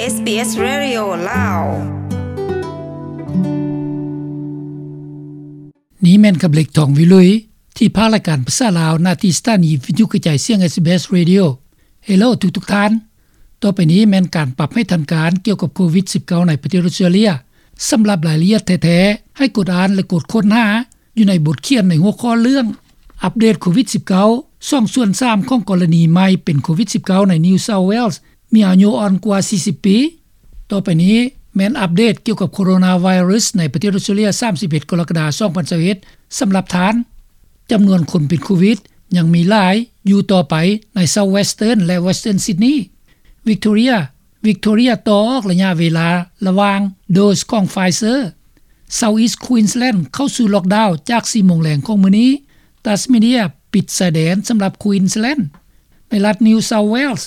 ເອສບີເອສ Radio ລາວ. ນີ້ແມ່ນຄຳເລັກ ທອງວິລຸຍ ທີ່ພາກລາຍການພາສາລາວ ນະທີ່ສະຖານີວິທະຍຸກະຈາຍສຽງ ເອສບີເອສ Radio. ເຮໂລ ທຸກໆທ່ານ. ຕໍ່ໄປນີ້ແມ່ນການປັບໃຫ້ທັນການກ່ຽວກັບໂຄວິດສິບເກົ້າໃນປະເທດອອສເຕຣເລຍ. ສຳລັບລາຍລະອຽດແທ້ໆ ໃຫ້ກົດອ່ານ ແລະ ກົດຄົ້ນຫາຢູ່ໃນບົດຂຽນໃນຫົວຂໍ້ເລື່ອງ ອັບເດດໂຄວິດສິບເກົ້າ ສອງສ່ວນສາມຂອງກໍລະນີໃໝ່ເປັນໂຄວິດສິບເກົ້າໃນ New South Wales ມີອາຍຸອ່ອນກວ່າສີ່ສິບປີ. ຕໍ່ໄປນີ້ແມ່ນອັບເດດກ່ຽວກັບໂຄໂຣນາໄວຣັສໃນປະເທດອອສເຕຣເລຍ ສາມສິບເອັດ ກໍລະກະດາ ສອງພັນຊາວເອັດ ສຳລັບທ່ານ. ຈຳນວນຄົນເປັນໂຄວິດຍັງມີຫຼາຍຢູ່ຕໍ່ໄປໃນ South Western ແລະ Western Sydney. Victoria Victoria ຕໍ່ອອກໄລຍະເວລາລະຫວ່າງໂດສຂອງ Pfizer. South East Queensland ເຂົ້າສູ່ລັອກດາວຈາກສີ່ໂມງແລງຂອງມື້ນີ້. Tasmania ປິດຊາຍແດນສຳລັບ Queensland. ໃນລັດ New South Wales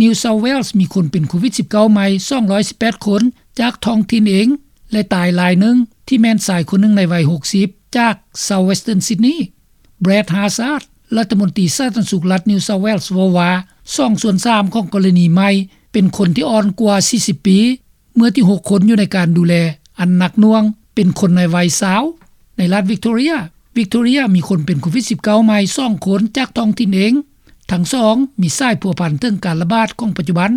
New South Wales ມີຄົນເປັນໂຄວິດສິບເກົ້າໃໝ່ສອງຮ້ອຍສິບແປດຄົນຈາກທ້ອງຖິ່ນເອງ ແລະ ຕາຍລາຍໜຶ່ງ ທີ່ແມ່ນຊາຍຄົນໜຶ່ງໃນໄວຫົກສິບ ຈາກ South Western Sydney. Brad Hazzard ລັດຖະມົນຕີສາທາລະນະສຸກລັດ New South Wales ເວົ້າວ່າ ສອງສ່ວນສາມຂອງກໍລະນີໃໝ່ເປັນຄົນທີ່ອ່ອນກວ່າສີ່ສິບປີ ເມື່ອທີ່ຫົກຄົນຢູ່ໃນການດູແລອັນໜັກໜ່ວງເປັນຄົນໃນໄວຊາວ. ໃນລັດ Victoria Victoria ມີຄົນເປັນໂຄວິດສິບເກົ້າໃໝ່ສອງຄົນຈາກທ້ອງຖິ່ນເອງ. ທັງສອງມີສາຍພົວພັນເຖິງການລະບາດຂອງປັດຈຸບັນ,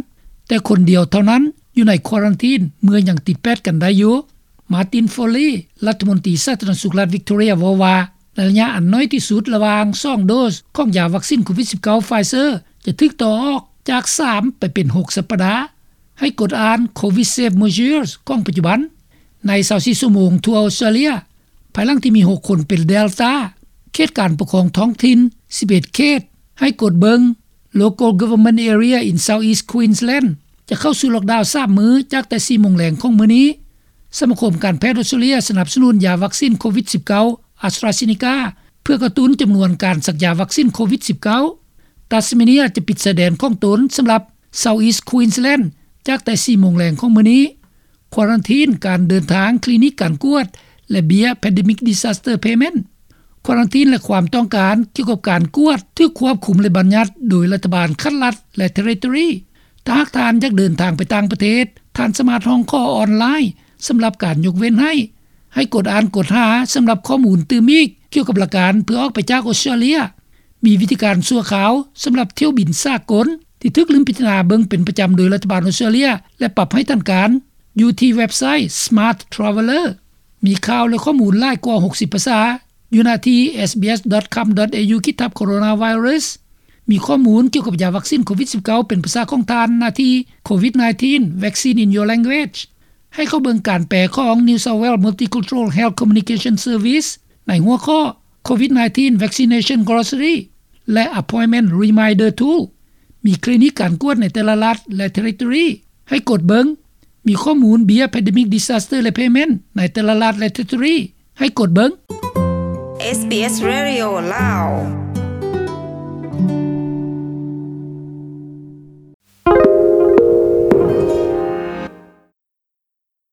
ແຕ່ຄົນດຽວເທົ່ານັ້ນຢູ່ໃນຄວາຣັນທີນເມື່ອຍັງຕິດແປດກັນໄດ້ຢູ່. Martin Foley ລັດຖະມົນຕີສາທາລະນະສຸກລັດ Victoria ເວົ້າວ່າ ໃນໄລຍະອັນນ້ອຍທີ່ສຸດລະຫວ່າງສອງໂດສຂອງຢາວັກຊິນໂຄວິດສິບເກົ້າ Pfizer ຈະຖືກຕໍ່ອອກຈາກສາມໄປເປັນຫົກສັບປະດາ. ໃຫ້ກົດອ່ານ Covid Safe Measures ຂອງປັດຈຸບັນ. ໃນຊາວສີ່ຊົ່ວໂມງທົ່ວອອສເຕຣເລຍ ພາຍຫຼັງທີ່ມີຫົກຄົນເປັນ Delta, ເຂດການປົກຄອງທ້ອງຖິ່ນສິບເອັດເຂດ ໃຫ້ກົດເບິ່ງ Local Government Area in South East Queensland ຈະເຂົ້າສູ່ລັອກດາວສາມມື້ ຈາກແຕ່ສີ່ໂມງແລງຂອງມື້ນີ້. ສະມາຄົມການແພດອອສເຕຣເລຍສະໜັບສະໜູນຢາວັກຊິນໂຄວິດສິບເກົ້າ AstraZeneca ເພື່ອກະຕຸ້ນຈຳນວນການສັກຢາວັກຊິນໂຄວິດສິບເກົ້າ. Tasmania ຈະປິດຊາຍແດນຂອງຕົນສຳລັບ South East Queensland ຈາກແຕ່ສີ່ໂມງແລງຂອງມື້ນີ້. ຄວາຣັນທີນການເດີນທາງ, ຄລີນິກການກວດ ແລະ ເບ້ຍ Pandemic Disaster Payment. ຄວາຣັນທີນ ແລະ ຄວາມຕ້ອງການກ່ຽວກັບການກວດຖືກຄວບຄຸມ ແລະ ບັນຍັດໂດຍລັດຖະບານຂັ້ນລັດ ແລະ Territory. ຖ້າຫາກທ່ານຢາກເດີນທາງໄປຕ່າງປະເທດ, ທ່ານສາມາດຮ້ອງຂໍອອນລາຍສຳລັບການຍົກເວັ້ນໃຫ້. ໃຫ້ກົດອ່ານ, ກົດຫາສຳລັບຂໍ້ມູນຕື່ມອີກກ່ຽວກັບຫຼັກການເພື່ອອອກໄປຈາກອອສເຕຣເລຍ. ມີວິທີການຊົ່ວຄາວສຳລັບຖ້ຽວບິນສາກົນ ທີ່ຖືກລືມພິຈາລະນາເບິ່ງເປັນປະຈຳໂດຍລັດຖະບານອອສເຕຣເລຍ ແລະ ປັບໃຫ້ທັນການ ຢູ່ທີ່ເວັບໄຊ Smart Traveller. ມີຂ່າວ ແລະ ຂໍ້ມູນຫຼາຍກວ່າຫົກສິບພາສາຢູ່ໜ້າທີ່ SBS dot com dot au ຂີດທັບ Coronavirus. ມີຂໍ້ມູນກ່ຽວກັບຢາວັກຊິນໂຄວິດສິບເກົ້າເປັນພາສາຂອງທ່ານໜ້າທີ່ Covid nineteen Vaccine in Your Language. ໃຫ້ເຂົ້າເບິ່ງການແປຂອງ New South Wales Multicultural Health Communication Service ໃນຫົວຂໍ້ Covid nineteen Vaccination Glossary ແລະ Appointment Reminder Tool. ມີຄລີນິກການກວດໃນແຕ່ລະລັດ ແລະ Territory ໃຫ້ກົດເບິ່ງ. ມີຂໍ້ມູນເບ້ຍ Pandemic Disaster ແລະ Payment ໃນແຕ່ລະລັດ ແລະ Territory ໃຫ້ກົດເບິ່ງ. SBS Radio ລາວ.